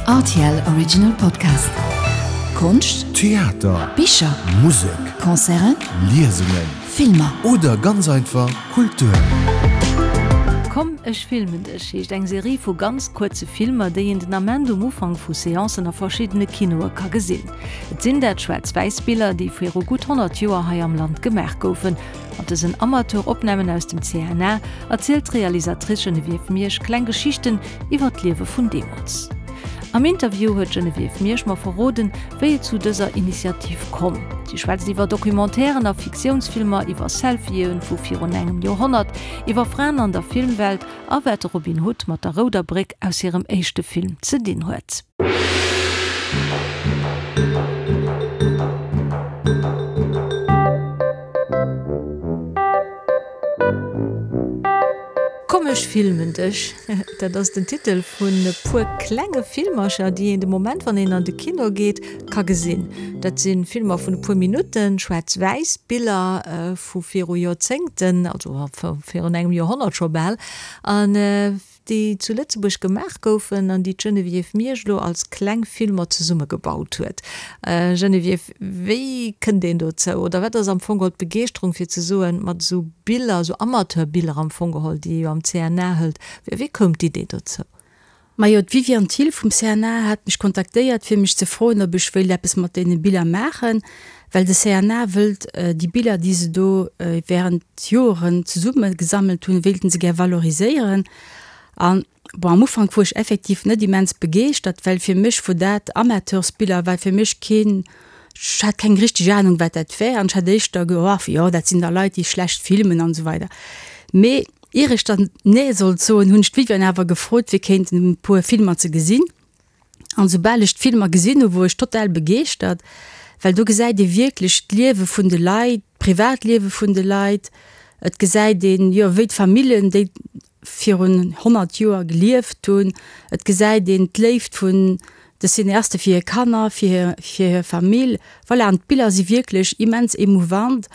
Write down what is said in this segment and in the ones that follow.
Rtl Original Podcast. Konscht, Theater, Bicher, Musek, Concerten, Liesungen, Filmer. Oder ganz einfach Kultur. Komm ech filmen dech heescht eng Serie vu ganz kuerze Filmer, déi een den Ament um Ufank vu Seancen a verschiddene Kinoe ka gesinn. Et sinn dat schwaarz-wäiss Biller, déi viru gutt 100 Joer hei am Land gemaach goufen. Mat dësen Amateur-Opnamen aus dem CNA erzielt d'Realisatrice Geneviève Miersch kleng Geschichten iwwer d'Liewe vun deemools. Am Interview huet d'Geneviève Miersch mer verroden, wéi et zu dëser Initiativ komm. Si schwätzt iwwer Documentairen a Fiktiounsfilmer, iwwer Selfie'en vu virun engem Joerhonnert, iwwer Fraen an der Filmwelt a wat de Robin Hood mat der Rouder Bréck aus hirem éischte Film ze dinn huet. Komm ech filmen dech, dat ass den Titel vun e puer klenge Filmercher, déi een de Moment, wann een an de Kino geet, ka gesinn. Dat si Filmer vun e puer Minutten, schwaarz-wäiss Biller vu viru Joerzéngten, also virun engem Joerhonnert scho bal, an déi zu Lëtzebuerg gemaach goufen an déi d'Geneviève Miersch elo als kleng Filmer zesummegebaut huet. Geneviève, wéi kënnt een dozou oder wat ass am Fong geholl d'Begeeschterung fir ze soen, mat esou Biller, esou Amateurbiller am Fong geholl, déi ee jo am CNA hëlt, wéi koum d'Idee dozou? Majo, d'Viviane Thill vum CNA hat mech kontaktéiert fir mech ze froen, ob ech wéilt eppes mat deene Biller maachen, well de CNA wëllt déi Biller, déi se do während Joeren zesumme gesammelt hunn, wéilten se gär valoriséieren. An bon, am Ufank wor ech effektiv net immens begeeschtert, well fir mech wor dat Amateursbiller, war fir mech keen, ech hat keng richteg Ahnung wat dat wär an ech hat éischter ge, oh jo, dat sinn da Leit, déi schlecht filmen an esou weider. Mee Ier ech dann Nee sollt soen, hunn ech d'Viviane awer gefrot, fir kéinten e puer Filmer ze gesinn. An soubal ech d'Filmer gesinn hu wor ech total begeeschtert, well do gesäit ee wierklech d'Liewe vun de Leit, d'Privatliewe vun de Leit. Et gesäit een, jo, wéi d'Famillen, déi virun 100 Joer gelieft hunn. Et gesäit een d'Léift vun de Cineaste fir hir Kanner, fir hir Famill. Voilà, an d'Biller si wierklech immens emouvant.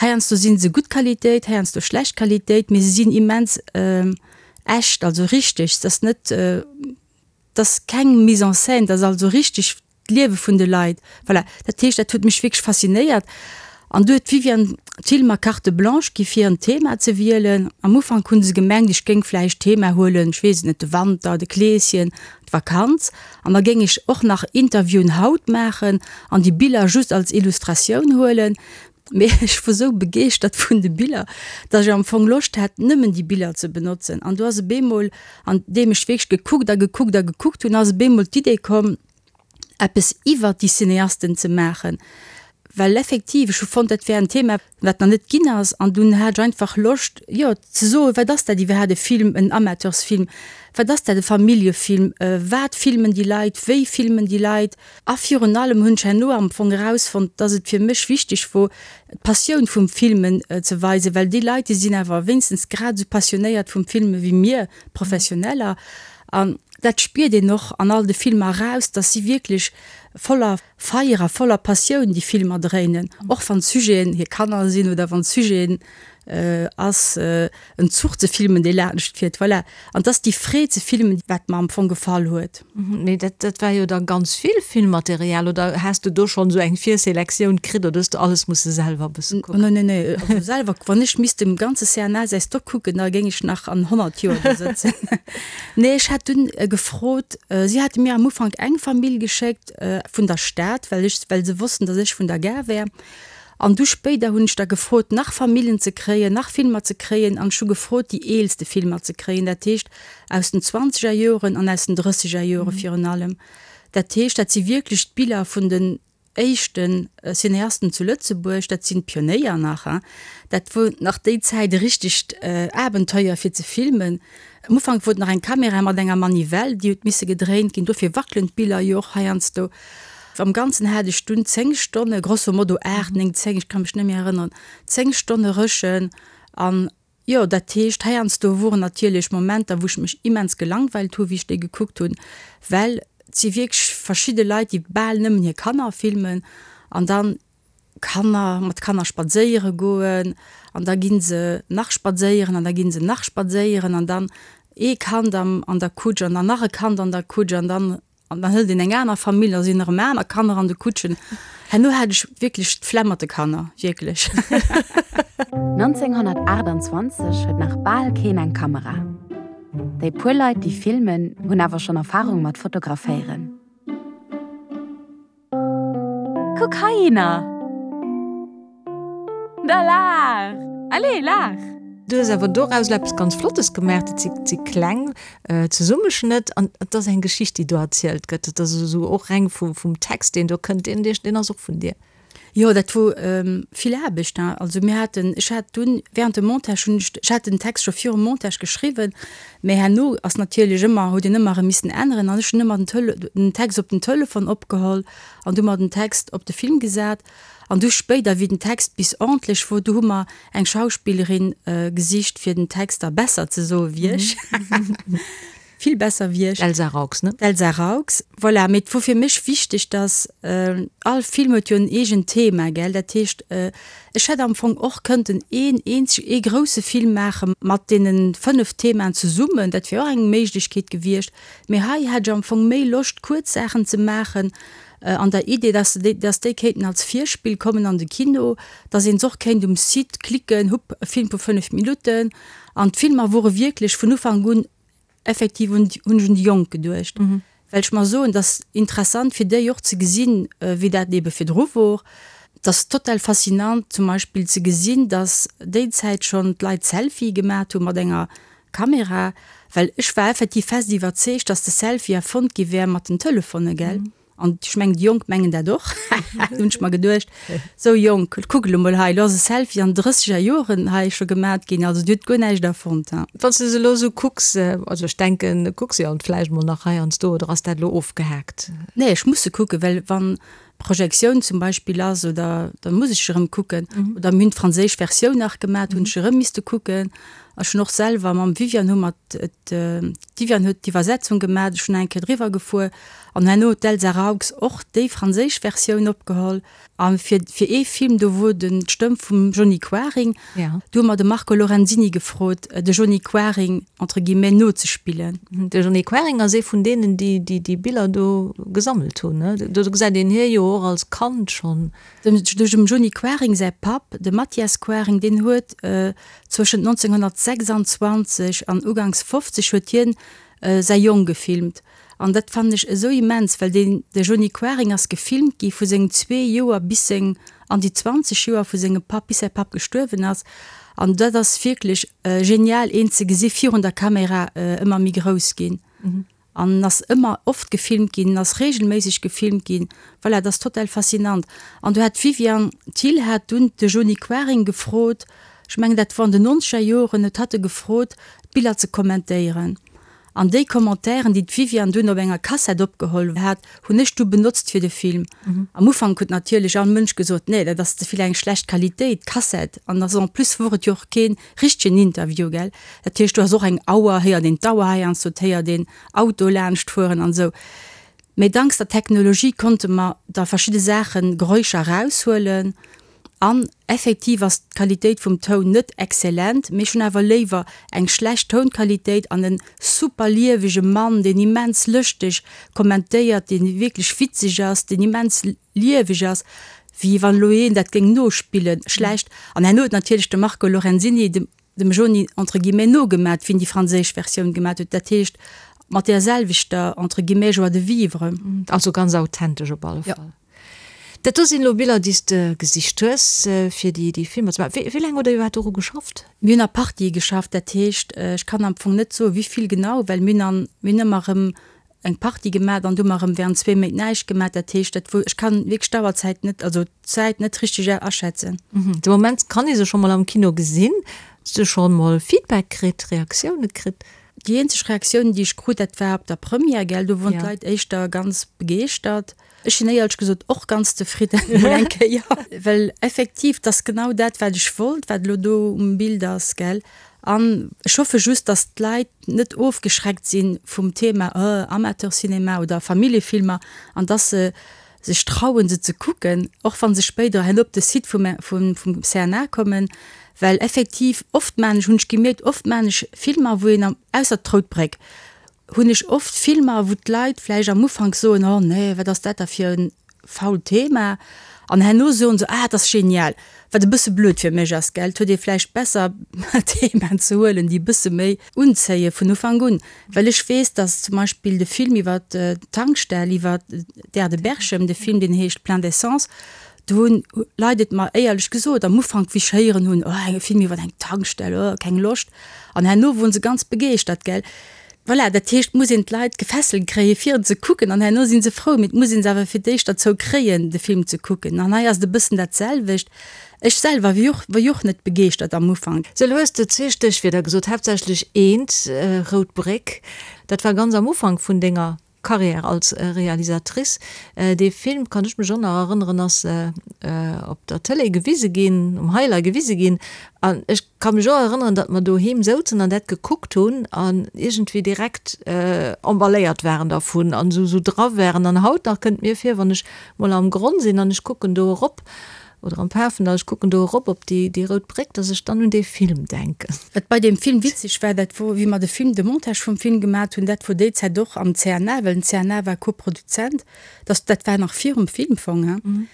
Heiansdo si se gutt Qualitéit, heiansdo schlecht Qualitéit, mee se sinn immens echt, also richteg. Et ass net, et ass keng Mise en scène, et ass also richteg d'Liewe vun de Leit. Voilà, dat heescht, dat huet mech wierklech faszinéiert. An du huet d'Viviane Thill mer Carte blanche gi fir en Thema ze wielen. Am Ufank hunn se gemengt, ech géing vläicht d'Thema huelen, ech weess et net, de Wanter, de Kleeschen, d'Vakanz. An da géing ech och nach Interviewen haut maachen an déi Biller just als Illustratioun huelen. Mee ech wor sou begeeschtert vun de Biller, dass ech am Fong Loscht hat, nëmmen déi Biller ze benotzen. An du ass e bemol, an deem ech wierklech gekuckt a gekuckt a gekuckt hunn, ass e bemol d'Idee komm, eppes iwwert déi Cineasten ze maachen, well effektiv, ech hu fonnt, dat wär en Thema, wat nach net ginn ass, an dunn hat ech einfach Loscht, jo, ze soen, wat ass dat iwwerhaapt, e Film, en Amateursfilm, wat ass dat, e Familljefilm, wat filmen déi Leit, wéi filmen déi Leit? A virun allem hunn ech herno am Fong erausfonnt, dass et fir mech wichteg wor, d'Passioun vum Filmen ze weisen, well déi Leit, déi sinn awer wéinstens grad esou passionéiert vum Filme wéi mir Professioneller. An dat spiert een och an all de Filmer eraus, dass si wierklech voller Feier a voller Passioun déi Filmer dréinen, och wann d'Sujeten hir Kanner sinn oder wann d'Sujeten ass en Zuch ze filmen, dee laanscht fiert. Voilà. An 't ass déi Freed ze filmen, wat mer am Fong gefall huet. Mee dat, dat war jo da ganz vill Filmmaterial, oder has de do schonn esou eng Virselektioun kritt oder hues de alles musse selwer e bësse kucken? Nee, nee, nee, also selwer, wann ech misst dem ganze CNA säi Stock kucken, da géing ech nach an 100 Joer do sëtzen. Nee, ech hat dunn gefrot, si hate mir am Ufank eng Famill geschéckt vun der Stad, well ech, well se wossten, datt ech vun der Gare wär. An du spéider hunn ech da gefrot, nach Famillen ze kréien, nach Filmer ze kréien an ech hu gefrot, déi eelste Filmer ze kréien, dat heescht aus den zwanzeger Joren an aus den drësseger Jore virun allem. Dat heescht, dat si wierklech d'Biller vun den éischte Cineasten zu Lëtzebuerg, dat sinn d'Pionéier nach, hein. Dat wor nach déi Zäit e richtegt Abenteuer fir ze filmen. Am Ufank wor et nach eng Kamera mat enger Manivelle, déi huet misse gedréint ginn, dofir wackelen d'Biller jo och heiansdo. Am Ganzen hat ech dunn 10 Stonne, grosso modo 8, 9, 10, ech ka mech net méi erënneren, 10 Stonne Rëschen an jo, dat heescht, heiansdo woren natierlech Momenter, wou ech mech immens gelangweilt hu wéi ech déi gekuckt hunn, well et si wierklech verschidde Leit, déi bal nëmmen hir Kanner filmen an dann Kanner, mat Kanner spadséiere goen an da gi se nach spadséieren an da gi se nach spadséieren an dann ee Kand am an der Kutsch an dann nach e Kand an der Kutsch an dann. An dann hëlt een eng aner Famill, da sinn erëm aner Kanner an de Kutschen. Herno hat ech wierklech d'Flemm mat de Kanner, wierklech. 1928 huet nach bal keen eng Kamera. Déi puer Leit, déi filmen, hunn awer schonn Erfarung mat Fotograféieren. Kuck heihinner! Da laach! Allez, laach! Du hues awer doraus eppes ganz Flottes gemaach. Dat si si kleng Zesummeschnëtt an et ass eng Geschicht, déi do erzielt gëtt. Et ass esou och reng vum vum Text, deen do kënnt, deen deen ass och vun dir. Jo, dat wor vill Aarbecht, hein. Also mir haten, ech hat dunn während dem Montage hunn ech, ech hat den Text scho virum Montage geschriwwen, mä herno ass natierlech ëmmer, huet een ëmmer erëm missen änneren an ech hunn ëmmer den Tele, den Text op den Telefon opgeholl an du mer den Text op de Film gesat. An du spéider, wéi den Text bis ordentlech wor, du hu mer eng Schauspillerin gesicht fir den Text da besser ze soe wéi ech. Vill besser wéi ech. D'Elsa Raux, ne? D'Elsa Raux, voilà. Mee et wor fir mech wichteg, dass, all Film huet jo en eegent Thema, gell? Dat heescht, ech hätt am Fong och kënnten een eenzeg, ee grousse Film maache mat deene 5 Themaen zesummen, dat wier och eng Méiglechkeet gewiescht. Mee hei hat ech am Fong méi Loscht, kuerz Saachen ze maachen, an der Idee, dass se déi, dass déi kéinten als Virspill kommen an de Kino, dass een se och kéint um Site klicken, hupp, e Film vu 5 Minutten. An d'Filmer wore wierklech vun Ufank un effektiv un, hunn ech un déi Jonk geduecht, well ech mer soen, dass interessant fir déi och ze gesinn, wéi dat ebe virdru wor. Et ass total faszinant zum Beispill ze gesinn, dass déi Zäit schonn d'Leit Selfie gemat hu mat enger Kamera, well ech war effektiv fest iwwerzeegt, dass de Selfie erfonnt gi wär mat den Telefone, gell? An ech mengen, déi Jonk mengen dat och, hunn ech mer geduecht. Sou Jonk, kuck elo mol hei, elo ass e Selfie an drësseger Joren hei scho gemat ginn, also dir hutt guer näischt erfonnt, ha. Wann s de se elo esou kucks, also ech denken, kucks se jo vläicht mol nach heiansdo, oder ass dat elo ofgehaakt? Nee, ech muss se kucken, well wann Projektioun zum Beispill ass oder da muss ech erëm kucken. Oder mir hunn d'franséisch Versioun nach gemat, hunn ech erëm misste kucken. Ech hunn och selwer mam Viviane hu mer d'Viviane huet d'Iwwersetzung gemat, ech hunn eng Kéier driwwer gefuer an herno huet d'Elsa Raux och déi franséisch Versioun opgeholl. A fir fir ee Film, do wor den d'Stëmm vum Johny Quaring, do hu mer de Marco Lorenzini gefrot, de Johny Quaring entre guillemets nozespillen. De Johny Quaring ass ee vun deenen, déi déi déi Biller do gesammelt hunn, ne? Do gesäit een hie jo och als Kand schonn. Dem dem Johny Quaring säi Papp, de Mathias Quaring, deen huet zwëschent 1926 an uganks 50 huet hien säi Jong gefilmt. An dat fannen ech esou immens, well deen, de Johny Quaring ass gefilmt gi vu sengem zwee Joer bis seng, an déi 20 Joer vu sengem Papp, bis säi Papp gestuerwen ass. An dat ass wierklech genial, een ze gesi virun der Kamera ëmmer méi grouss ginn. An en ass ëmmer oft gefilmt ginn, en ass regelméisseg gefilmt ginn. Voilà, dat ass total faszinant. An do hat d'Viviane Thill hat dunn de Johny Quaring gefrot, ech mengen dat wor an den nonzeger Joren, huet hatt e gefrot, d'Biller ze kommentéieren. An déi Commentairen, déi d'Viviane dunn op enger Kassett opgeholl hat, hunn ech du benotzt fir de Film. Am Ufank huet natierlech all Mënsch gesot, Nee, dat ass ze vill eng schlecht Qualitéit, d'Kassett. An ass en plus wor et jo och kee richtegen Interview, gell. Dat heescht, do ass och eng Auer, héiert een d'Auer heiansdo, et héiert een Auto laanscht fueren an esou. Mee danks der Technologie konnte mer da verschidde Saachen, Geräuscher eraushuelen. An effektiv ass d'Qualitéit vum Toun net excellent, mee ech hunn awer léiwer eng schlecht Tounqualitéit an en super liewege Mann, deen immens lëschteg kommentéiert, deen wierklech witzeg ass, deen immens lieweg ass, wéi wann elo een dat géing nospillen, schlecht. An herno huet natierlech de Marco Lorenzini dem dem Joni entre guillemets nogemat, wéi en déi franséisch Versioun gemat huet, dat heescht mat där selwechter entre guillemets joie de vivre. Also ganz authentesch op alle Fall. Dat do sinn elo Biller, déi s de gesicht hues, fir déi déi Filmer ze maachen. Wéi laang hutt Der iwwerhaapt doru geschafft? Mir hunn a Partië geschafft, dat heescht, ech kann am Fong net soen, wéi vill genau, well mir hunn an, mir hunn ëmmer erëm eng Partie gemat an du hu mer erëm während zwee Méint näischt gemat. Dat heescht, dat wou, ech kann wierklech d'Auerzäit net, also d'Zäit net richteg aschätzen. De Moment kann ee se scho mol am Kino gesinn. Hues du scho mol Feedback kritt, Reaktioune kritt? Déi eenzeg Reaktioun, déi ech krut, dat war op der Première, gell, do woren d'Leit éischter ganz begeeschtert. Ech sinn éierlech gesot och ganz zefridden, mol eng Kéier, well effektiv, 't ass genau dat, wat ech wollt, wat elo do um Bild ass, gell. An ech hoffe just, dass d'Leit net ofgeschreckt si vum Thema Amateurcinema oder Familljefilmer an dass se sech trauen, se ze kucken, och wa se spéider herno op de Site vum CNA kommen, well effektiv oft maan ech, hunn ech gemierkt, oft maan ech Filmer, wou een, ausser d'Rout Bréck, Hunn ech oft Filmer, wou d'Leit vläicht am Ufank soen, oh nee, wat ass dat da fir e fault Thema, an herno soen se, ah, dat ass genial. Wat e bësse blöd fir mech ass, gell. Et huet ee vläicht besser Themaen ze huelen, déi e bësse méi unzéie vun Ufank un. Well ech weess, datt zum Beispill de Film iwwer d'Tankstell, iwwer d'Aire de Berchem, de Film deen heescht Plein d'essence, do hunn Leit et mer éierlech gesot am Ufank, wéi ech héieren hunn, oh, e Film iwwer eng Tankstell, oh, keng Loscht. An herno woren se ganz begeeschtert, gell. Voilà, dat heescht, et muss een d'Leit gefesselt kréien, fir en ze kucken, an herno si se frou. Mee et muss ee se awer fir d'éischt derzou kréien, de Film ze kucken. An hei ass et e bëssen dat selwecht. Ech selwer wier och, war jo och net begeeschtert am Ufank. Sou, elo hues de zwee Stéchwierder gesot, haaptsächlech eent, Rout Bréck. Dat war ganz am Ufank vun denger Carrière als Realisatrice. Dee Film, kann ech mech och nach erënneren, ass op der Tëlee gewise ginn, um Highlight gewise ginn. An ech ka mech och erënneren, datt mer doheem souzen an dat gekuckt hunn an iergendwéi direkt emballéiert waren dervun an esou dra waren. An haut nach kënnt mir vir, wann ech mol am Gronn sinn an ech kucken do erop, oder am Pafendall, ech kucken do erop op déi, déi rout Bréck, dass ech dann un dee Film denken. Wat bei deem Film witzeg war, dat wor, wéi mer de Film, de Montage vum Film gemat hunn, dat wor déi Zäit och am CNA, well den CNA war Koproduzent, dass, dat war nach virum Filmfong, hein,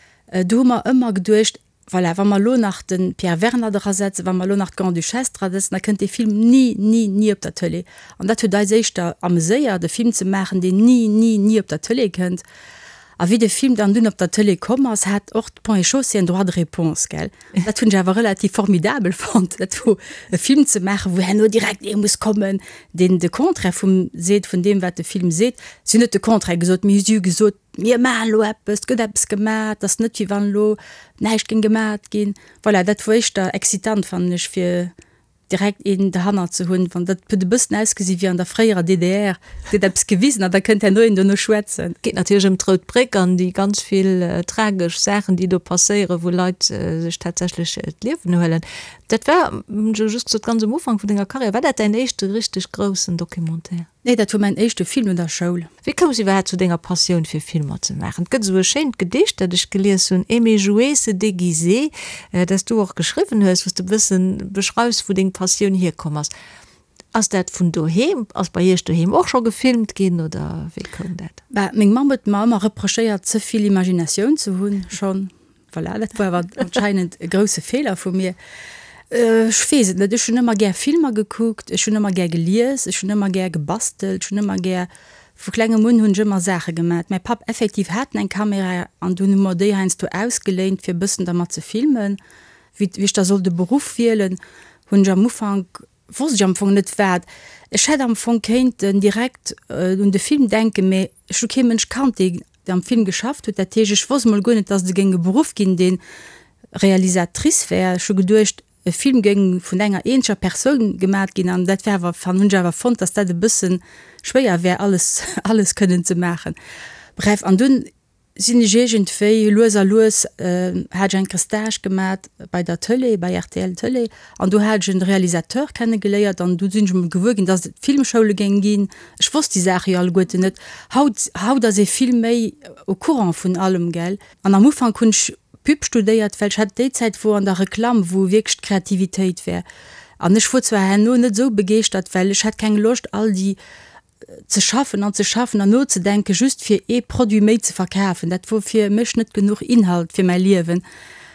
do hu mer ëmmer geduecht, voilà, wa mer elo nach de Pierre Werner drasetzen, wa mer elo nach d'Grande-Duchesse drasetzen, da kënnt dee Film ni, ni, ni op der Tëlee. An dat huet eis éischter ameséiert, e Film ze maachen, deen ni, ni, ni op der Tëlee kënnt. A wéi de Film dann dunn op der Tëlee komm ass, hat och d'Ponts et Chaussées en droit de réponse, gell? Dat hunn ech awer relativ formidabel fonnt, dat wor e Film ze maachen, wou herno direkt ee muss kommen, deen de Contraire vum seet, vun deem wat de Film seet. Si hunn net de Contraire gesot, mee si hu gesot, mir maachen elo eppes, et gëtt eppes gemaach, et ass net wéi wann elo näischt géing gemaat ginn. Voilà, dat wor éischter excitant, fannen ech, fir direkt een derhannert ze hunn, wann dat huet e bëssen ausgesi wéi an der fréierer DDR, et gëtt eppes gewisen an da kënnt herno een dono schwätzen. Et geet natierlech ëm d'Rout Bréck an déi ganz vill tragesch Saachen, déi do passéieren, wou Leit sech tatsächlech d'Liewen huelen. Dat war, hunn ech elo just gesot, ganz um Ufank vun denger Karriär. War dat däin éischte richteg groussen Documentaire? Nee, dat wor mäin éischte Film no der Schoul. Wéi koums iwwerhaapt zu denger Passioun fir Filmer ze maachen? Et gëtt esou e schéint Gedicht, dat ech gelies hunn, Aimer jouer, se déguiser, dat s du och geschriwwen hues, wou s de e bëssen beschreifs, wou deng Passioun hierkomm ass. Ass dat vun doheem? Ass bei iech doheem och scho gefilmt ginn oder wéi koum dat? Bah, meng Mamm huet mer ëmmer reprochéiert, ze vill Imaginatioun ze hunn schonn. Voilà, dat war awer anscheinend e grousse Feeler vu mir. Ech weess et net, ech hunn ëmmer gär Filmer gekuckt, ech hunn ëmmer gär gelies, ech hunn ëmmer gär gebastelt, ech hunn ëmmer gär, vu klengem un hunn ech ëmmer Saache gemat. Mäi Papp effektiv hat eng Kamera an dunn hu mer déi heiansdo ausgeléint fir e bëssen dermat ze filmen. Wéi ech da sollt e Beruff wielen, hunn ech am Ufank, wosst ech am Fong net wat. Ech hätt am Fong kéinten direkt un de Film denken, mee ech hu kee Mënsch kannt, dee am Film geschafft huet. Dat heescht, ech wosst mol guer net, dass et e géing e Beruff ginn, dee Realisatrice wär. Ech hu geduecht, e Film géing vun enger eenzeger Persoun gemat ginn an dat wär awer, hunn ech awer fonnt, dass dat e bësse schwéier wär, alles, alles kënnen ze maachen. Bref, an dunn sinn ech iergendwéi lues a lues, hat ech eng Kéier Stage gemat bei der Tëlee, bei rtl Tëlee, an do hat ech en Realisateur kennegeléiert an du sinn ech emol gewuer ginn, dass et Filmschoule géing ginn. Ech wosst déi Saache jo alleguerten net. Haut, haut ass ee vill méi au courant vun allem, gell. An am Ufank hunn ech Pub studéiert, well ech hat déi Zäit wor an der Reklamm, wou wierklech d'Kreativitéit wär. An ech wor zwar herno net esou begeeschtert, well ech hat keng Loscht all déi ze schaffen an ze schaffen an nozedenken, just fir ee Produit méi ze verkafen, dat wor fir mech net genuch Inhalt fir mäi Liewen.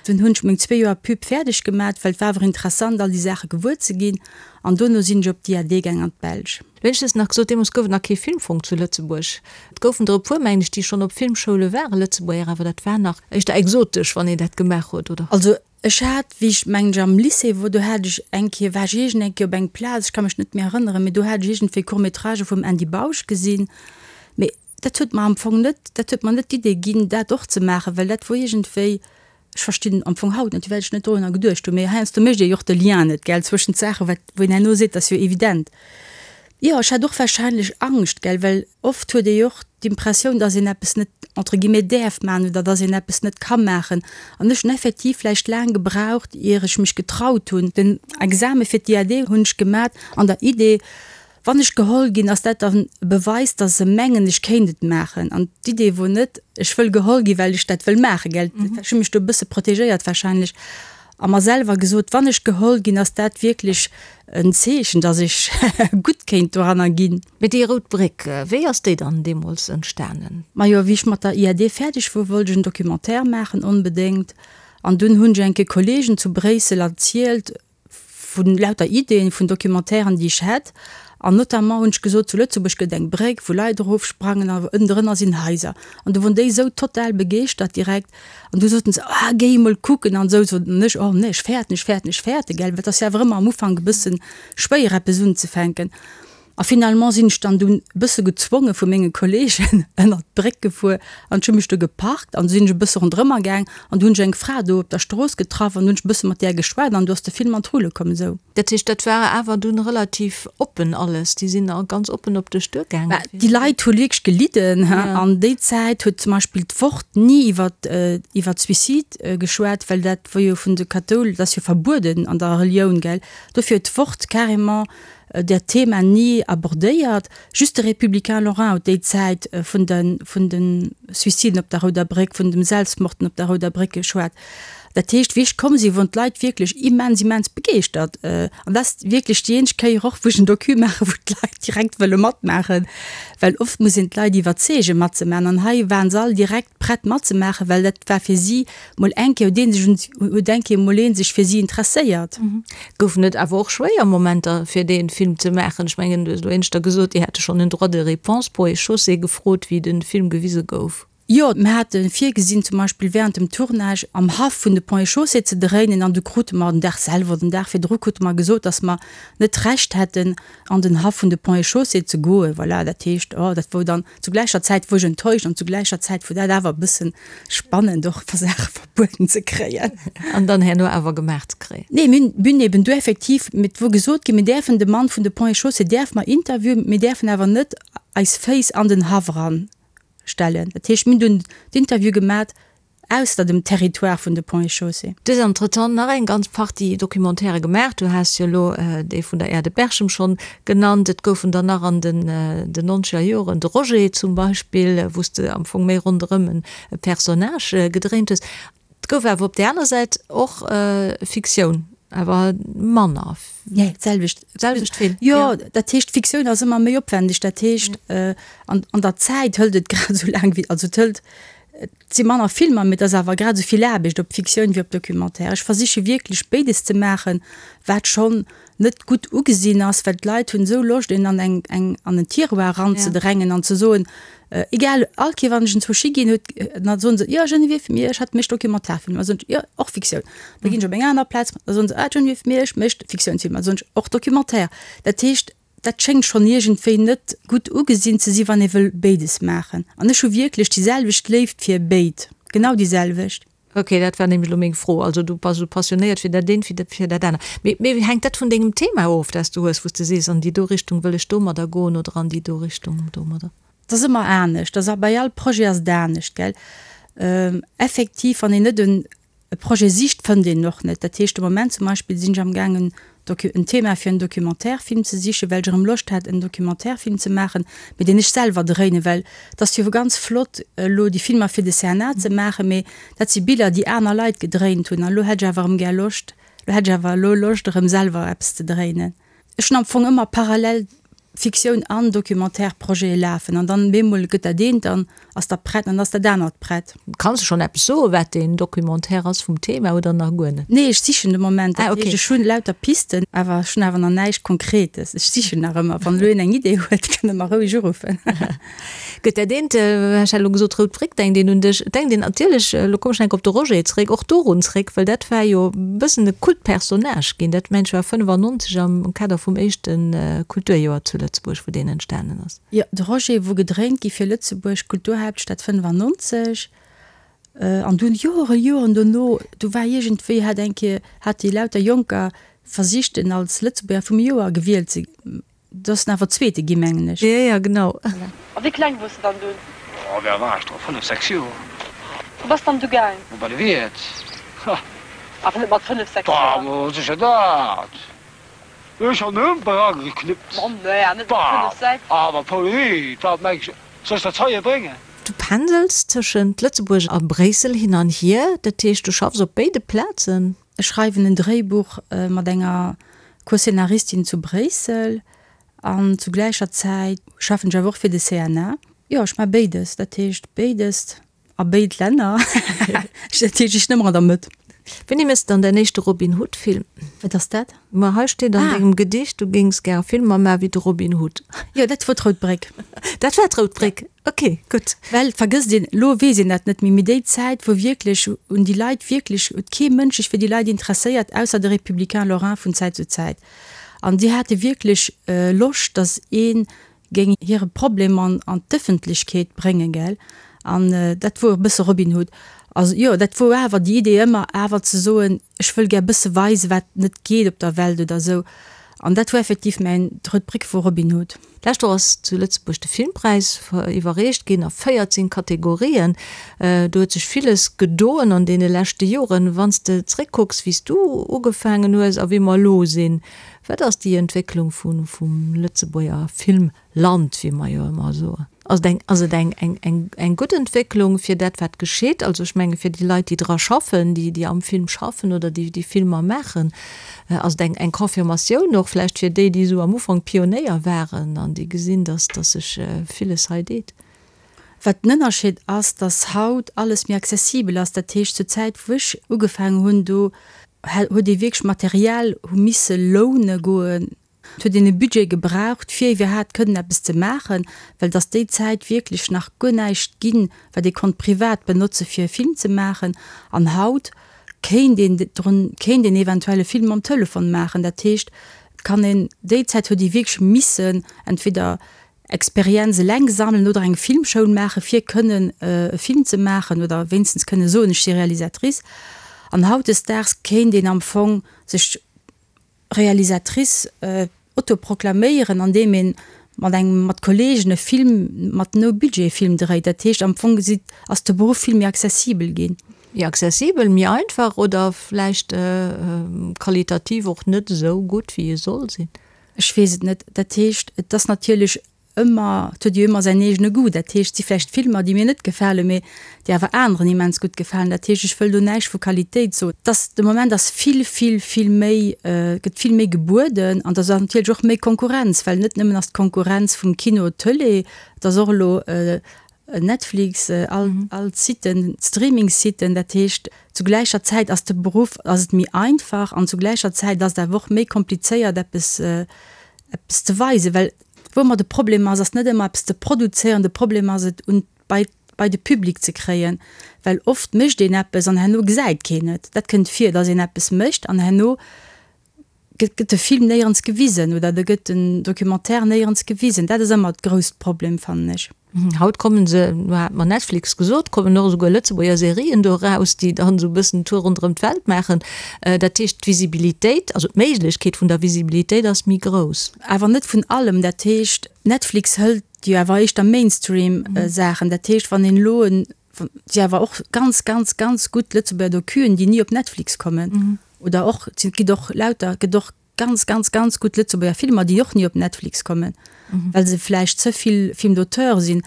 Dunn hunn ech meng zwee Joer Pub fäerdeg gemat, well et war awer interessant all déi Saache gewuer ze ginn an dono sinn ech op d'IAD gaang an d'Belsch. Lo hunn ech just nach gesot, deemools gouf et nach kee Filmfong zu Lëtzebuerg. Et goufen der e puer, mengen ech, déi schonn op Filmschoule waren, Lëtzebuerger, awer dat war nach éischter exotesch, wann een dat gemaach huet, oder? Also Ech hat, wéi ech, mengen ech, am Lycée wor, do hat ech eng Kéier, war ech iergend eng Kéier op eng Plaz, ech ka mech net méi erënneren, mee do hat ech iergendwéi Court-métragë vum Andy Bausch gesinn. Mee dat huet mer am Fong net, dat huet mer net d'Idee ginn, dat och ze maachen, well dat wor iergendwéi, ech verstinn am Fong haut net, firwat ech net dorunner geduecht hunn, mee heiansdo mécht ee jo och de Lien net, gell, zwëschent Saachen, wat, wou een herno seet, dat ass jo evident. Jo, ech hat och wahrscheinlech Angscht, gell, well oft huet ee jo och d'Impressioun, dass een eppes net entre guillemets däerf maachen oder dass een eppes net ka maachen. An ech hunn effektiv vläicht laang gebraucht, ier ech mech getraut hunn. Den Exame fir d'IAD hunn ech gemat an der Idee, wann ech geholl ginn, ass dat dann e Beweis, dass se mengen, ech kéint et maachen. An d'Idee wor net, ech wëll geholl ginn, well ech dat wëll maachen, gell. Ech hu mech do e bësse protegéiert wahrscheinlech. A mer selwer gesot, wann ech geholl ginn, ass dat wierklech en Zeechen, dass ech gutt kéint doranner ginn. Mee déi Rout Bréck, wéi ass déi dann deemools entstanen? Majo, wéi ech mat der IAD fäerdeg wor, wollt ech en Documentaire maachen, onbedéngt. An dunn hunn ech enke Kollegen zu Bréissel erzielt vu lauter Ideen vun Documentairen, déi ech hätt. An notamment hunn ech gesot, zu Lëtzebuerg gëtt eng Bréck, wou Leit erofsprangen a ënnendrënner sinn Haiser. An du wor déi esou total begeeschtert direkt. An du soten se, ah, géi emol kucken an esou. Sot ech, oh nee, ech fäerten, ech fäerten, ech fäerten, gell, well et ass jo awer ëmmer am Ufank e bësse schwéier eppes unzefänken. A finalement sinn ech dann dunn e bësse gezwonge vu menge Kollegen ënnert d'Bréck gefuer an ech hu mech do geparkt an du sinn ech e bësse ronderëmmer gaang an du hunn ech eng Fra do op der Strooss getraff an du hunn ech e bësse mat där geschwat an du ass de Film an d'Rulle komm esou. Dat heescht, dat war awer dunn relativ oppen alles, déi sinn a ganz oppen op dech duergaangen? Bah, déi Leit hu wierklech gelidden, he. An déi Zäit huet zum Beispill d'Wort ni iwwer iwwer Suicide geschwat, well dat wor jo vun de Kathoul, dat ass jo verbueden an der Relioun, gell. Dofir huet d'Wort carrément dat Thema ni abordéiert. Just de Républicain Lorrain huet déi Zäit vun de vun de Suiciden op der Rouder Bréck, vun dem Selbstmorden op der Rouder Bréck geschwat. Dat heescht, wéi ech komm sinn, woren d'Leit wierklech immens, immens begeeschtert. An dat ass wierklech déi eenzeg Kéier och, wou ech en Docu maachen, wou d'Leit direkt wëlle matmaachen, well oft muss een d'Leit iwwerzeegen, matzemaachen. An hei waren se all direkt prett matzemaachen, well dat war fir si mol eng Kéier, huet ee sech un, huet eng Kéier mol ee sech fir si interesséiert. Goufen et awer och schwéier Momenter, fir dee Film ze maachen? Ech mengen, du hues elo éineschter gesot, Dir hätte schonn en Droit de réponse Ponts et Chaussées gefrot, wéi de Film gewise gouf. Jo, mir hate virgesinn, zum Beispill während dem Tournage am Haff vun de Ponts et Chaussées ze dréinen an du krute mer den Dag selwer oder den Dag virdru krute mer gesot, dass mer net d'Recht hätten, an den Haff vun de Ponts et Chaussées ze goen. Voilà, dat heescht, oh, dat wor dann zu gläicher Zäit wor ech enttäuscht an zu gläicher Zäit wor dat awer e bëssen spannend och fir Saache verbueden ze kréien. An dann herno awer gemaach ze kréien. Nee, mir hunn eben du effektiv, et wor gesot ginn, mir däerfen de Mann vun de Ponts et Chaussées däerfe mer interviewen, mir däerfen awer net eis Féiss an den Haff eran stellen. Dat heescht, mir hunn dunn d'Interview gemat ausser dem Territoire vun de Ponts et Chaussées. Du hues entretemps nach eng ganz Partie Documentairë gemaach. Du has jo elo dee vun der Aire de Berchem schonn genannt. Et goufen der nach an den nonzeger Joren, de Roger zum Beispill, wou s de am Fong méi ronderëm e Personnage gedréint hues. Et gouf awer op där aner Säit och Fiktioun, awer manner. Nee, d'selwecht. D'selwecht vill. Jo, dat heescht, Fiktioun ass ëmmer méi opwendeg. Dat heescht, an der Zäit hëlt et grad esou laang wéi, also et hëlt, et si manner Filmer, mee et ass awer grad esou vill Aarbecht op Fiktioun wéi op Documentaire. Ech versiche wierklech béides ze maachen, wat schonn net gutt ugesinn ass, well d'Leit hunn esou Loscht een an eng eng an en Tiroir eranzedrängen an ze soen, egal, all Kéier wann ech en zwou Ski ginn huet, da soen se, jo Geneviève Miersch hat mécht Dokumentarfilmer, da soen ech, jo och Fiktioun. Da ginn ech op eng aner Plaz, da soen se, ah Geneviève Miersch mécht Fiktiounsfilmer, da soen ech, och Documentaire. Dat heescht, dat schéngt schonn iergendwéi net gutt ugesinn ze sinn, wann ee wëll béides maachen. An ech hu wierklech déi selwecht Léift fir béid, genau déi selwecht. Ok, dat war nämlech elo meng Fro. Also du bass esou passionéiert fir dat eent wéi fir dat anert. Mee mee hänkt dat vun dengem Thema of, dat s du hues, wou s de sees, an déi do Richtung wëll ech domadder goen oder an déi do Richtung domadder? Et ass ëmmer anescht, ass bei all Projet ass et anescht, gell. Effektiv, wann een net en E Projet sicht, fënnt een och net. Dat heescht, de Moment zum Beispill sinn ech am gaangen en Thema fir en Documentaire-Film ze sichen, well ech erëm Loscht hat en Documentaire-Film ze maachen, mee deen ech selwer dréinen, well et ass jo ganz flott elo déi Filmer fir de CNA ze maachen, mee dat si Biller déi aner Leit gedréint hunn an elo hätt ech awer erëm gär Loscht, elo hätt ech awer elo Loscht erëm selwer eppes ze dréinen. Ech hunn am Fong ëmmer parallel Fiktioun an Documentaire-Projete lafen an dann bemol gëtt dat eent, dann ass dat prett an dann ass dat anert prett. Kanns de schonn eppes soen, wat deen Documentaire ass vum Thema oder nach guer net? Nee, ech sichen de Moment. Dat heescht, ech hunn lauter Pisten, awer ech hunn awer nach näischt Konkretes. Ech sichen nach ëmmer. Wann elo een eng Idee huet, kann e mer roueg uruffen. Gëtt dat eent, ech hat elo gesot Rout Bréck, denkt een un dech, et denkt een natierlech, elo kommen ech nach eng Kéier op de Roger zeréck, och dorun zeréck, well dat war jo e bëssen e Kultpersonnage ginn, dat mengen ech war 95 am Kader vum éischte Kulturjoer zu Lëtzebuerg, wou deen entstanen ass. Jo, de Roger wor gedréint gi fir Lëtzebuerg Kulturhaaptstad 95 an dunn Joren, Joren dono, du war iergendwéi, hat eng Kéier, hat déi lauter Jonker versicht en als Lëtzebuerger vum Joer gewielt ze Do ass en awer Zweete gi mengen ech. Jo, jo, genau. A wéi kleng wors de dann dunn? Oh, wéi al war ech do? Fënnef, sechs Joer. Wou bass dann du gaang? Oh, bei de Wiert. Ha. Awer net mat fënnef, sechs Joer? Bah, ma sécher dat. Ech han Humper ageknippt. Ma nee, net mat fënnef, sechs. Bah, awer Pauline, wat mengs de, soll ech dat heie bréngen? Du pendels tëschent Lëtzebuerg a Bréissel hin an hier, dat heescht du schaffs op béide Plazen? Ech schreiwen en Dréibuch mat enger Co-Scénaristin zu Bréissel an zu gläicher Zäit schaffen ech awer och fir de CNA. Jo, ech maache béides, dat heescht béides a béid Länner. Dat heescht, ech sinn ëmmer an der Mëtt. Wéini méchs de dann däin éischte Robin Hood Film? Wat ass dat? Ma hei steet an dengem Gedicht, du géings gär Filmer maache wéi de Robin Hood. Jo, dat wor d'Rout Bréck. Dat war d'Rout Bréck, ok, gutt. Well, et vergësst een, elo weess een dat net méi, mee déi Zäit, wou wierklech un déi Leit wierklech, huet kee Mënsch sech fir déi Leit interesséiert, ausser de Républicain Lorrain vun Zäit zu Zäit. An déi hate wierklech Loscht, datt ee géing hire Problem an an d'Ëffentlechkeet bréngen, gell. An dat wor e bësse Robin Hood. Also jo, dat wor awer déi Idee ëmmer awer ze soen, ech wëll gär bësse weisen, wat net geet op der Welt oder esou. An dat wor effektiv mäin, d'Rout Bréck wor Robin Hood. D'lescht Woch ass zu Lëtzebuerg de Filmpräis iwwerreecht ginn a 14 Kategorien. Do huet sech villes gedoen an deene leschte Joren. Wann s de zréckkucks, wéi s du ugefaangen hues a wéi mer elo sinn, Wat ass déi Entwécklung vum Lëtzebuerger Filmland, wéi mer jo ëmmer soen? Ass et eng, ass et eng, eng, eng, eng gutt Entwécklung fir dat, wat geschitt? Also ech menge fir déi Leit, déi dra schaffen, déi, déi am Film schaffen oder déi, déi Filmer maachen, ass et eng, eng Confirmatioun och vläicht fir déi, déi esou am Ufank Pionéier waren an déi gesinn, dass, dass sech villes hei deet. Wat den Ënnerscheed ass, dass haut alles méi accessibel ass. Dat heescht, zur Zäit, wou ech ugefaangen hunn, do huet ee wierklech Material hu misse loune goen. Et huet een e Budget gebraucht, fir iwwerhaapt kënnen eppes ze maachen, well et ass déi Zäit wierklech nach guer näischt ginn, wat ee konnt privat benotze fir e Film ze maachen. An haut kéint een drun, kéint een eventuell e Film mam Telefon maachen. Dat heescht, et kann een, déi Zäit huet ee wierklech missen entweder Experienz eleng sammelen oder eng Filmschoul maachen, fir kënnen e Film ze maachen oder wéinstens kënne soen, ech si Realisatrice. An hautdesdaags kéint een am Fong sech Realisatrice autoproklaméieren, andeem een mat engem, mat Kollegen e Film mat No-Budget-Film dréit. Dat heescht, am Fong gesi ass de Beruff vill méi accessibel ginn. Méi accessibel, méi einfach oder vläicht qualitativ och net esou gutt, wéi e soll sinn? Ech weess et net. Dat heescht, et ass natierlech ëmmer, et huet jo ëmmer säin eegene Goût. Dat heescht, et si vläicht Filmer, déi mir net gefalen, mee déi awer aneren immens gutt gefalen. Dat heescht, ech wëll do näischt vu Qualitéit soen. Et ass, de Moment ass vill, vill, vill méi, gëtt vill méi gebueden an et ass natierlech och méi Konkurrenz, well net nëmmen ass d'Konkurrenz vum Kino, Tëlee, et ass och elo Netflix, all all d'Siten, d'Streaming-Siten, dat heescht zu gläicher Zäit ass de Beruff, ass et méi einfach an zu gläicher Zäit ass et awer och méi komplizéiert eppes eppes ze weisen, well wou ëmmer de Problem ass, ass net ëmmer eppes ze produzéieren, de Problem ass et un bei bei de Public ze kréien, well oft mécht een eppes an herno gesäit keen et. Dat kënnt vir, datt een eppes mécht an herno gëtt de Film néierens gewisen oder da gëtt den Documentaire néierens gewisen. Dat ass ëmmer d'grousst Problem, fannen ech. Haut kommen se, lo hat mer Netflix gesot, kommen och esouguer Lëtzebuerger Serien do eraus, déi dann esou e bëssen Tour ronderëm d'Welt maachen. Dat heescht, d'Visibilitéit, also d'Méiglechkeet vun der Visibilitéit ass méi grouss. Awer net vun allem. Dat heescht, Netflix hëlt jo awer éischter Mainstream-Saachen. Dat heescht, wann een elo en, si awer och ganz, ganz, ganz gutt Lëtzebuerger Docuen, déi ni op Netflix kommen. Oder och, et gëtt och lauter, gëtt och ganz, ganz, ganz gutt Lëtzebuerger Filmer, déi och ni op Netflix kommen, well se vläicht ze vill Film d'auteur sinn.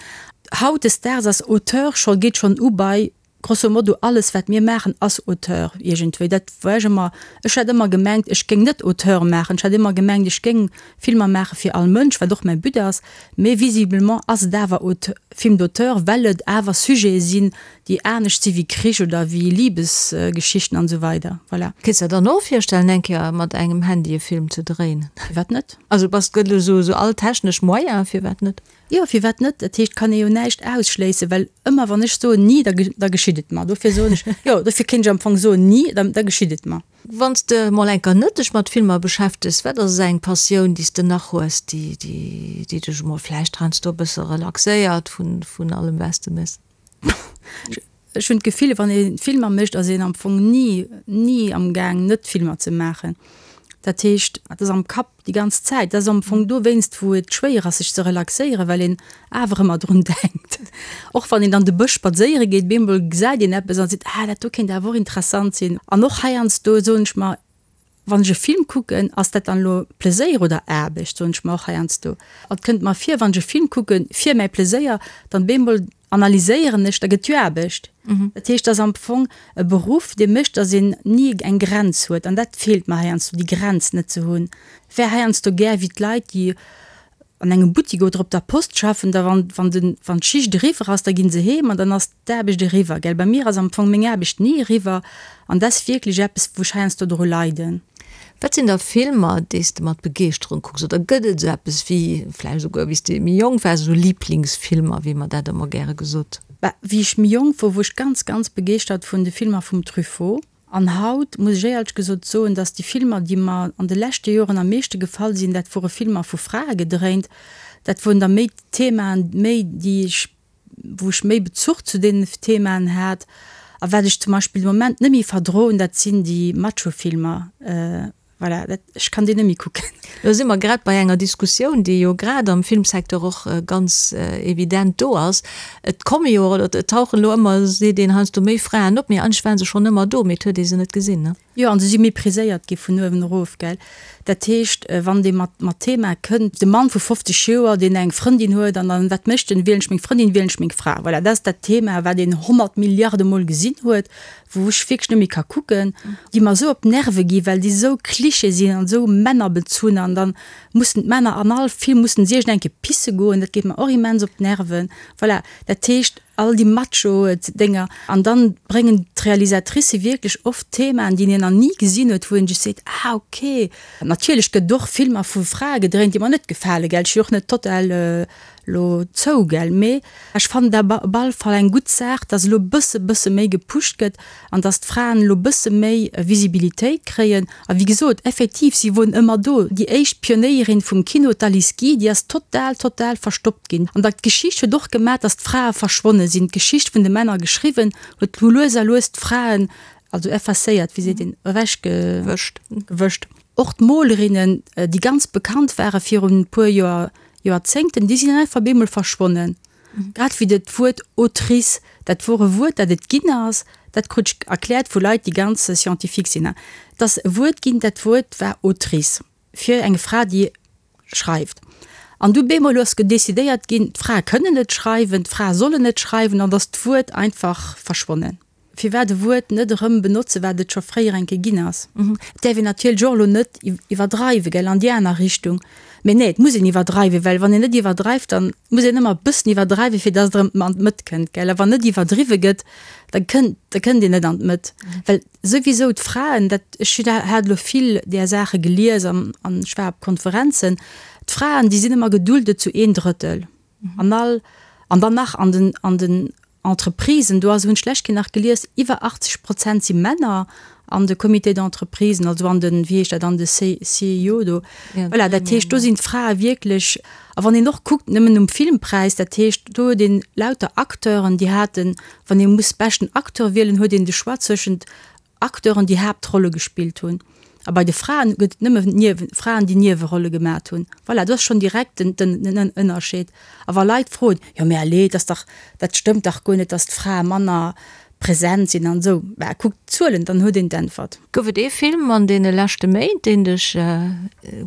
Hautdesdaags ass Auteur scho, geet schonn u bei grosso modo alles wat mir maachen ass Auteur iergendwéi. Dat war ech ëmmer, ech hat ëmmer gemengt, ech géing net Auteur maachen, ech hat ëmmer gemengt, ech géing Filmer maache fir all Mënsch, wat och mäi But ass, mee visiblement ass et awer Film d'auteur, well et awer Sujete sinn, déi anescht si wéi Krich oder wéi Libesgeschichten an esou weider. Voilà. Kéints der dann och virstellen eng Kéier mat engem Handy e Film ze dréinen? Firwat net? Also bass gëtt elo sou sou all technesch Moyen, firwat net? Jo, firwat net? Dat heescht, kann ee jo näischt ausschléissen, well ëmmer wann ech soen ni, da da geschitt et mer. Dofir soen ech, jo, dofir kéint ech am Fong soen ni, da da geschitt et mer. Wann s de mol eng Kéier net dech mat Filmer beschäftegs, wat ass eng Passioun déi s de nach hues, déi déi déi dech emol vläicht heiansdo e bësse relaxéiert vun vun allem wat s de méchs? Ech hunn d'Gefill, wann ee Filmer mécht, ass een am Fong ni, ni am Gaang net Filmer ze maachen. Dat heescht, et ass am Kapp déi ganz Zäit. Dat ass am Fong dowéinst, wou et schwéier ass sech ze relaxéieren, well een awer ëmmer drun denkt. Och wann een an de Bësch spadséiere geet, bemol gesäit een eppes an seet, ah dat do kéint awer och interessant sinn. An och heiansdo soen ech mer, Wann ech e Film kucken, ass dat dann elo Pleséier oder Aarbecht, soen ech mer och heiansdo. Et kënnt mer vir, wann ech e Film kucken fir mäi Pleséier, dann bemol. analyséieren ech, da gëtt jo Aarbecht. Dat heescht, et ass am Fong e Beruff, dee mécht, datt een ni eng Grenz huet. An dat feelt mer heiansdo, déi Grenz net ze hunn. Wär heiansdo gär wéi d'Leit, déi an engem Buttik oder op der Post schaffen, da wann, wann den, wann d'Schicht eriwwer ass, da ginn se heem an dann ass d'Aarbecht eriwwer, gell. Bei mir ass am Fong meng Aarbecht ni eriwwer an dat ass wierklech eppes, wou ech heiansdo dru leiden. Wat sinn da Filmer, déi s de mat Begeeschterung kucks? Oder gëtt et esou eppes wéi, vläicht esouguer wéi s de méi jonk waars, esou Liblingsfilmer, wéi mer dat ëmmer gäre gesot? Bah, wéi ech méi jonk wor, wor ech ganz, ganz begeeschtert vun de Filmer vum Truffaut. An haut muss ech éierlech gesot soen, dass déi Filmer, déi mer an de leschte Joren am meeschte gefall sinn, dat wore Filmer vu Frae gedréint. Dat woren da méi Themaen, méi déi ech, wou ech méi Bezuch zu deenen Themaen hat. A wat ech zum Beispill de Moment net méi verdroen, dat sinn déi Macho-Filmer. Voilà, dat, ech kann déi net méi kucken. Lo si mer grad bei enger Diskussioun, déi jo grad am Filmsecteur och ganz evident do ass. Et komme jo, oder et tauchen elo ëmmer, seet een heiansdo, méi Fraen op, mee eigentlech ware se schonn ëmmer do, mee et huet ee se net gesinn, ne? Jo, an se si mépriséiert gi vun uewen erof, gell. Dat heescht, wann dee mat, mat Thema kënnt, de Mann vu 50 Joer, deen eng Frëndin huet, an dann, wat mécht en? Wielen ech meng Frëndin, wielen ech meng Fra? Voilà, dat ass dat Thema, wat een 100 Milliarde Mol gesinn huet. wou ech wierklech net méi ka kucken, déi mer esou op d'Nerve gi well déi esou Cliché sinn an esou männerbezunn an dann mussen d'Männer an all Film mussen si iergend eng Kéier pisse goen, dat geet mer och immens op d'Nerven. Voilà, dat heescht all déi Macho-Dénger an dann bréngen d'Realisatricë wierklech oft Themaen, déi een nach ni gesinn huet, wou een sech seet, ah ok. Natierlech gëtt et och Filmer vu Frae gedréint, déi mer net gefale, gell, ech si och net total Lo zou, gell? Mee ech fannen dat op alle Fall eng gutt Saach, dass elo bësse bësse méi gepusht gëtt an dass d'Fraen elo bësse méi Visibilitéit kréien. A wéi gesot, effektiv, si woren ëmmer do. Déi éischt Pionéierin vum Kino, d'Alice Guy, déi ass total, total verstoppt ginn. An da d'Geschicht huet och gemaach, dass d'Frae verschwonne sinn. D'Geschicht vun de Männer geschriwwen huet elo lues a lues d'Fraen, also effacéiert, wéi seet een, ewechgewëscht. Gewëscht. Och d'Molerinnen, déi ganz bekannt ware virun e puer Joer, Joerzéngten, déi sinn einfach bemol verschwonnen. Grad wéi dat Wuert Autrice, dat wor e Wuert, dat et ginn ass, dat krut ech erkläert vu Leit, déi ganz scientifique sinn, et ass e Wuert ginn, dat Wuert war Autrice fir eng Fra, déi schreift. An du bemol ass decidéiert ginn, d'Frae kënnen net schreiwen, d'Frae sollen net schreiwen, an ass d'Wuert einfach verschwonnen. Firwat e Wuert net erëm benotzen, wat et scho fréier eng Kéier ginn ass? Et däerf een natierlech och elo net iwwerdreiwen, gell, an déi aner Richtung. Mee nee, et muss een iwwerdreiwen, well wann een net iwwerdreift, dann muss een ëmmer e bëssen iwwerdreiwen, fir dass et erëm an d'Mëtt kënnt, gell. A wann net iwwerdriwwe gëtt, da kënnt, da kënnt een net an d'Mëtt. Well souwisou d'Fraen, dat, ech hat elo vill där Saache gelies an ech war op Konferenzen, d'Fraen, déi sinn ëmmer geduldet zu een Drëttel an all, an dann nach an den, an den Entreprisen, do ass, hunn ech d'lescht Kéier nach gelies, iwwer 80 Prozent si Männer an de Comités d'entreprisen, also an den, wéi heescht dat, an de CEO do. Voilà, dat heescht, do sinn d'Frae wierklech, a wann een och kuckt, nëmmen um Filmpräis, dat heescht, do huet een lauter Acteuren, déi haten, wann ee muss beschten Acteur wielen, huet een de Choix zwëschent Acteuren, déi Haaptrolle gespillt hunn. A bei de Fraen gëtt et nëmme Niewen, Fraen, déi Niewerolle gemat hunn. Voilà, do ass schonn direkt den, den, den Ënnerscheed. A wa Leit froen, jo mä allez, dat ass dach, dat stëmmt dach guer net, datt d'Frae manner present sinn an esou, bah, kuckt d'Zuelen, dann huet een d'Äntwert. Gouf et ee Film an deene leschte Méint, deen dech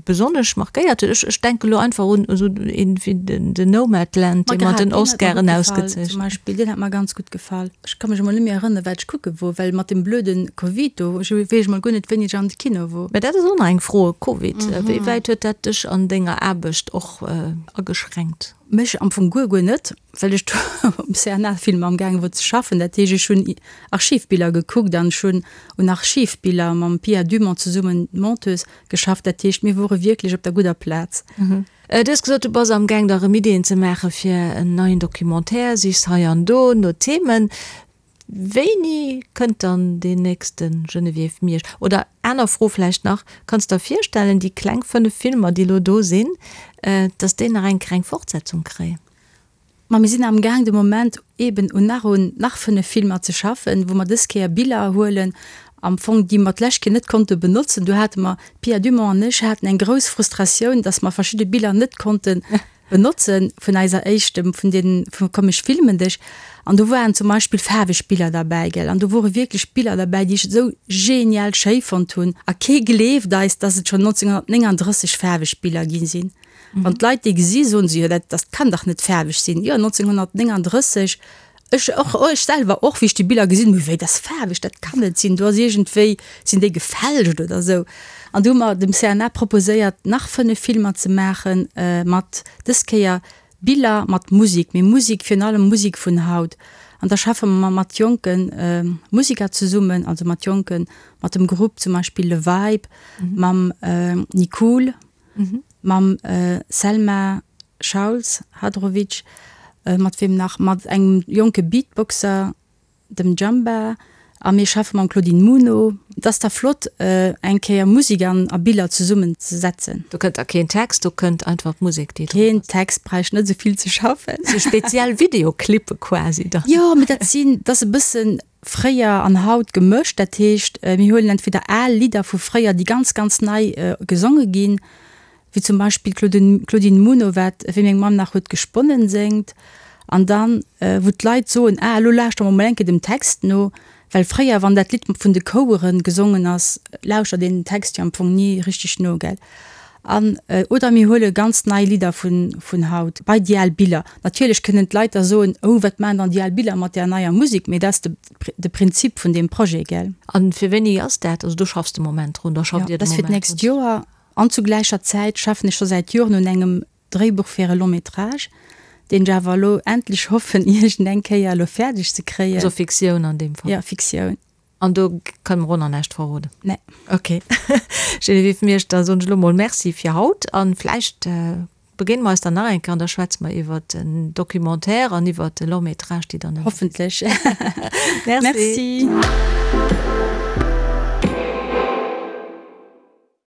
besonnesch markéiert huet? Ech denke lo einfach un esou een wéi den Nomadland, dee mat den Oscaren ausgezeechent. Zum Beispill, deen hat mer ganz gutt gefall. Ech ka mech emol net méi erënneren, wat ech kucke wor, well mat dem blöde Covid do, ech weess emol guer net, wéini ech an de Kino wor. Mä dat ass och nach eng Fro, Covid, wéi wäit huet dat dech an denger Aarbecht och ageschränkt? Mech am Fong guer, guer net, well ech do um CNA-Film amgaange wor ze schaffen. Dat heescht, ech hunn Archivbiller gekuckt an ech hunn un Archivbiller mam Pia Dumont zesummen, d'Monteuse, geschafft. Dat heescht, mir wore wierklech op der gudder Plaz. Du hues gesot, du bass amgaang der erëm Ideeën ze maache fir en neien Documentaire, sichs hei an do no Themen. Wéini kënnt dann deen nächste Geneviève Miersch? Oder aner Fro vläicht nach, Kanns der virstellen, déi kleng 5 Filmer, déi elo do sinn, dass déi nach eng Kéier eng Fortsetzung kréien? Ma mir sinn amgaang de Moment eeben un nach un nach 5 Filmer ze schaffen, wou mer dës Kéier Biller huelen am Fong, déi mer d'lescht Kéier net konnte benotzen. Do hate mer, d'Pia Dumont an ech haten eng grouss Frustratioun, dass mer verschidde Biller net konnte benotze vun eiser éischtem, vun deenen, vu Komm ech filmen dech. An do waren zum Beispill faarweg Biller derbäi, gell. An do wore wierklech Biller derbäi, déi ech esou genial schéi fonnt hunn. A kee gleeft eis, dass et schonn 1939 faarweg Biller gi sinn. Wann d'Leit déi gesi soen se, jo dat dat kann dach net faarweg sinn. Jo 1939, ech och, ech selwer och, wéi ech déi Biller gesinn hunn, wéi dat ass faarweg, dat kann net sinn, do ass iergendwéi, sinn déi gefälscht oder esou. An du hu mer dem CNA proposéiert nach 5 Filmer ze maachen mat dës Kéier Biller mat Musik, mee Musik, virun allem Musik vun haut. An da schaffe mer mat jonke Musiker zesummen, also mat jonken, mat dem Grupp zum Beispill Le Vibe, mam Nicool, mam Selma Schauls Hadrovic, mat weem nach, mat engem jonke Beatboxer, dem Jamba, a mir schaffe mam Claudine Muno. Et ass da flott, eng Kéier Musek an a Biller zesummen ze setzen. Do kënnt da keen Text, do kënnt einfach d'Musek, déi drop ass. Keen Text, bräicht net esou vill ze schaffen. Sou speziell Videoclippe quasi dann. Jo, mee dat sinn, dat ass e bëssen fréier an haut gemëscht. Dat heescht, mir huelen entweder al Lidder vu fréier, déi ganz, ganz nei gesonge ginn, wéi zum Beispill d'Claudine Muno, wat Wéi meng Mamm nach huet gesponnen séngt, an dann, wou d'Leit soen, ah, elo lauschtere mer mol eng Kéier dem Text no, well fréier, wann dat Lidd vun de Chouere gesongen ass, lauschtert een den Text jo am Fong ni richteg no, gell? An, oder mir huele ganz nei Lidder vun, vun haut, bei déi al Biller. Natierlech kënnen d'Leit da soen, oh, wat maachen dann déi al Biller mat där neier Musek? Mee dat ass de, de Prinzip vun deem Projet, gell? A fir wéini ass dat? Also do schaffs de Moment drun, da schafft Dir de Moment drun? Jo, dat ass fir d'nächst Joer. An zu gläicher Zäit schaffen ech scho säit Joren un engem Dréibuch fir e Long métrage, deen ech awer elo endlech hoffen iergend eng Kéier elo fäerdeg ze kréien. Also Fiktioun an deem Fall? Jo, Fiktioun. An do kënne mer och nach näischt verroden? Nee. Ok. Geneviève Miersch, da soen ech elo mol Merci fir haut an vläicht begéine mer eis dann nach eng Kéier an da schwätze mer iwwert den Documentaire an iwwert de Long métrage, déi dann. Hoffentlech. Merci. Merci.